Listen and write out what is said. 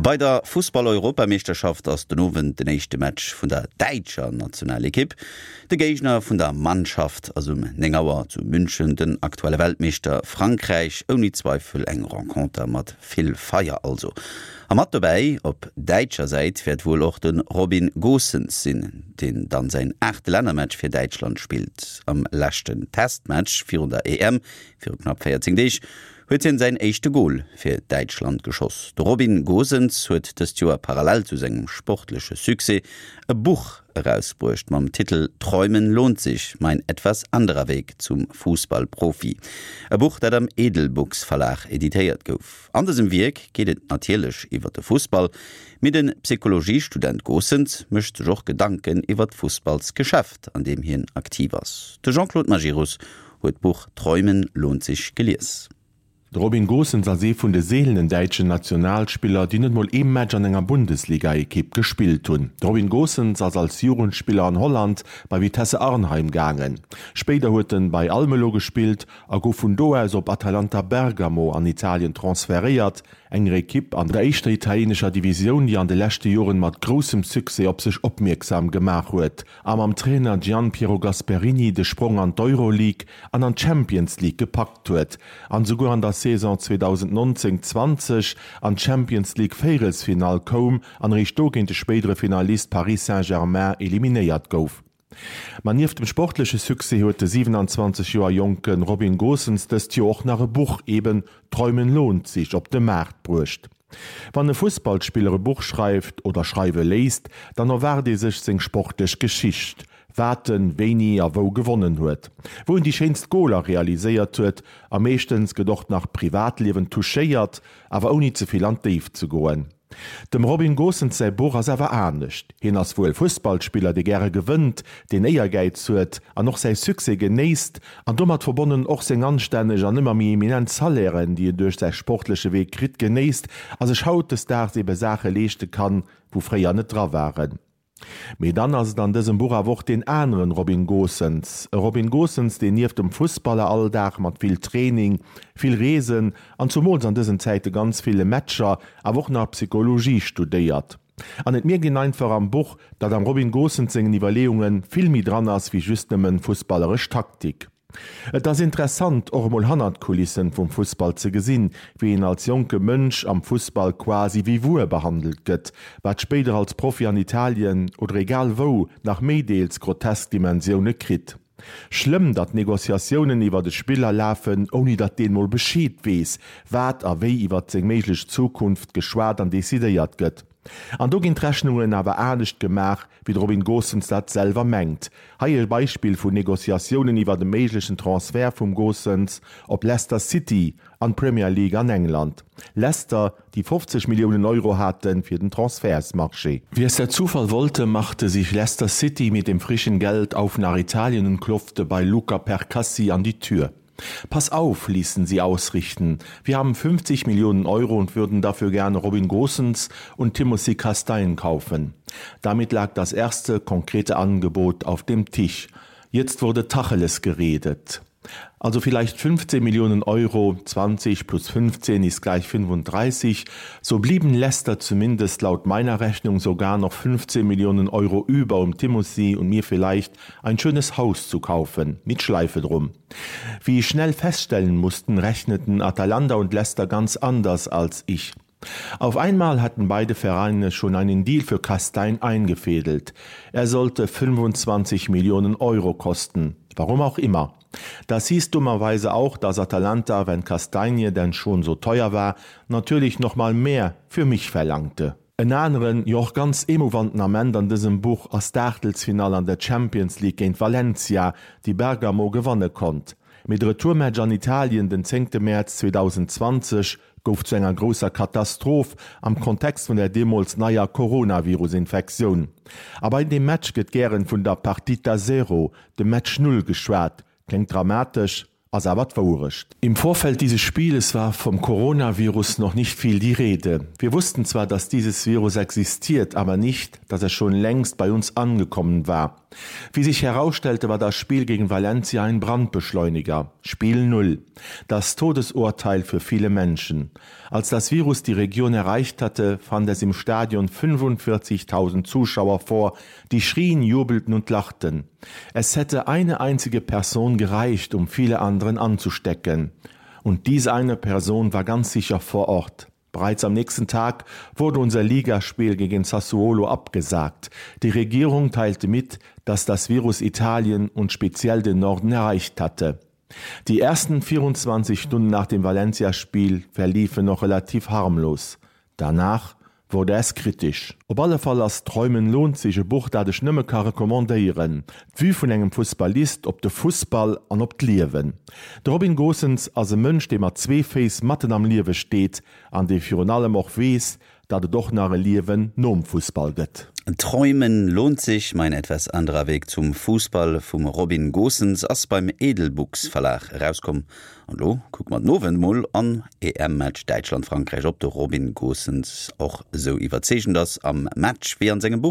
Bei der Fussball-Europameeschterschaft ass den Owend den éischte Match vun der däitscher Nationalekipp. De Géigner vun der Mannschaft ass um 9 Auer zu München den aktuelle Weltmeeschter Frankräich. Ouni Zweifel eng Renconter mat vill Feier also. A mat dobäi op däitscher Säit wäert wuel och de Robin Gosens sinn, deen dann säin aachte Lännermatch fir Däitschland spillt. Am leschten Testmatch virun der EM viru knapp 14 Deeg huet hien säin éischte Gol fir Däitschland geschoss. De Robin Gosens huet dëst Joer parallel zu sengem sportleche Succès e Buch erausbruecht mam Titel Träumen lohnt sich, mein etwas anderer Weg zum Fußballprofi. E Buch dat am Edelbooks Verlag editéiert gouf. An dësem Wierk geet et natierlech iwwer de Fussball, mee de Psychologiestudent Gosens mécht sech och Gedanken iwwer d'Fussballsgeschäft an deem hien aktiv ass. De Jean-Claude Majerus huet d'Buch Träumen lohnt sich gelies. De Robin Gosens ass ee vun de seelenen däitschen Nationalspiller, déi net mol ee Match an enger Bundesligaekipp gespillt hunn. De Robin Gosens ass als Jugendspiller an Holland bei Vitesse Arnheim gaangen. Spéider huet en bei Almelo gespillt a gouf vun do aus op Atalanta Bergamo an Italien transferéiert, enger Ekipp an der éischter italienescher Divisioun, déi an de leschte Joren mat groussem Succès op sech opmierksam gemaach huet a mam Trainer Gian Piero Gasperini de Sprong an d'Euroleague an an d'Champions League gepackt huet an esouguer an der Saison 2019, 20 an d'Champions League Véierelsfinall koum an eréischt do géint de spéidere Finalist Paris Saint-Germain eliminéiert gouf. Ma nieft dem sportleche Succès huet de 27 Joer jonke Robin Gosens dëst Joer och nach e Buch, eben Träumen lohnt sich, op de Maart bruecht. Wann e Fussballspiller e Buch schreift oder schreiwe léisst, dann erwaart ee sech seng sportlech Geschicht, wat en wéini a wou gewonnen huet, wou en déi schéinst Goler realiséiert huet a meeschtens gëtt och nach d'Privatliewen touchéiert, awer ouni ze vill an d'Déift ze goen. Dem Robin Gosens säi Buch ass awer anescht. Hien ass wuel Fussballspiller, dee gäre gewënnt, deen Éiergäiz huet an och säi Succès genéisst an domat verbonnen och seng anstänneg an ëmmer méi eminent Salairen, déi en duerch säi sportleche Wee kritt, genéisst a sech hautdesdaags ebe Saache leeschte kann, wou fréier net dra waren. Mee dann ass et an dësem Buch awer och deen aneren Robin Gosens. E Robin Gosens, deen nieft dem Fussballeralldag mat vill Training, vill Reesen an zumools an dësen Zäite ganz ville Matcher awer och nach Psychologie studéiert. An et mierkt een einfach am Buch, datt am Robin Gosens sengen Iwwerleeunge vill méi dran ass wéi just nëmmen fussballeresch Taktik. Et ass interessant, och emol hannert d'Kulissen vum Fussball ze gesinn, wéi een als jonke Mënsch am Fussball quasi wéi Wuer behandelt gëtt, wat spéider als Profi an Italien oder egal wou nach méi deels grotesk Dimensioune kritt. Schlëmm, datt Negociatiounen iwwert e Spiller lafen, ouni datt deen mol Bescheed weess, wat a wéi iwwert seng méiglech Zukunft geschwat an decidéiert gëtt. An do ginn d'Rechnungen awer anescht gemaach, wéi de Robin Gosens dat selwer mengt. Hei e Beispill vun Negociatiounen iwwert e méiglechen Transfert vum Gosens op Leicester City an d'Premier League an England. Leicester, déi 50 Milliounen Euro hate fir den Transfertsmarché. Wie es der Zufall wollte, machte sich Leicester City mit dem frischen Geld auf nach Italien und klopfte bei Luca Percassi an die Tür. Pass auf, ließen sie ausrichten. Wir haben 50 Millionen Euro und würden dafür gerne Robin Gosens und Timothy Castagne kaufen. Damit lag das erste konkrete Angebot auf dem Tisch. Jetzt wurde Tacheles geredet. Also vielleicht 15 Millionen Euro, 20 plus 15 ist gleich 35. So blieben Leicester zumindest laut meiner Rechnung sogar noch 15 Millionen Euro über, um Timothy und mir vielleicht ein schönes Haus zu kaufen, mit Schleife drum. Wie ich schnell feststellen mussten, rechneten Atalanta und Leicester ganz anders als ich. Auf einmal hatten beide Vereine schon einen Deal für Kastein eingefädelt. Er sollte 25 Millionen Euro kosten. Warum auch immer. Das hieß dummerweise auch, dass Atalanta, wenn Kastanie denn schon so teuer war, natürlich noch mal mehr für mich verlangte. En aneren, jo och ganz emouvanten Ament an dësem Buch ass d'Aachtelsfinall an der Champions League géint Valencia, déi Bergamo gewanne konnt. Mee de Retourmatch an Italien den zéngte Mäerz 2020 gouf zu enger grousser Katastroph am Kontext vun der deemools neier Coronavirus-Infektioun. A bei deem Match gëtt gären vun der Partita Zero, dem Match Null geschwat. Kléngt dramatesch? Ass awer d'Wouerecht. Im Vorfeld dieses Spieles war vom Coronavirus noch nicht viel die Rede. Wir wussten zwar, dass dieses Virus existiert, aber nicht, dass er schon längst bei uns angekommen war. Wie sich herausstellte, war das Spiel gegen Valencia ein Brandbeschleuniger. Spiel 0. Das Todesurteil für viele Menschen. Als das Virus die Region erreicht hatte, fand es im Stadion 45.000 Zuschauer vor, die schrien, jubelten und lachten. Es hätte eine einzige Person gereicht, um viele anderen anzustecken. Und diese eine Person war ganz sicher vor Ort. Bereits am nächsten Tag wurde unser Ligaspiel gegen Sassuolo abgesagt. Die Regierung teilte mit, dass das Virus Italien und speziell den Norden erreicht hatte. Die ersten 24 Stunden nach dem Valencia-Spiel verliefen noch relativ harmlos. Danach wurde es kritisch. Op alle Fall ass Träumen lohnt sich e Buch, dat ech nëmme ka recommandéieren. D'Vue vun engem Fussballist op de Fussball an op d'Liewen. De Robin Gosens ass e Mënsch, dee mat zwee Féiss matten am Liewe steet an dee virun allem och weess, datt et och nach e Liewen nom Fussball gëtt. Träumen lohnt sich, mein etwas anderer Weg zum Fußball vum Robin Gosens ass beim Edelbooks Verlag erauskomm. An elo kucke mer den Owend mol am EM-Match Däitschland-Frankräich, ob de Robin Gosens och esou iwwerzeegend ass am Match wéi an sengem Buch.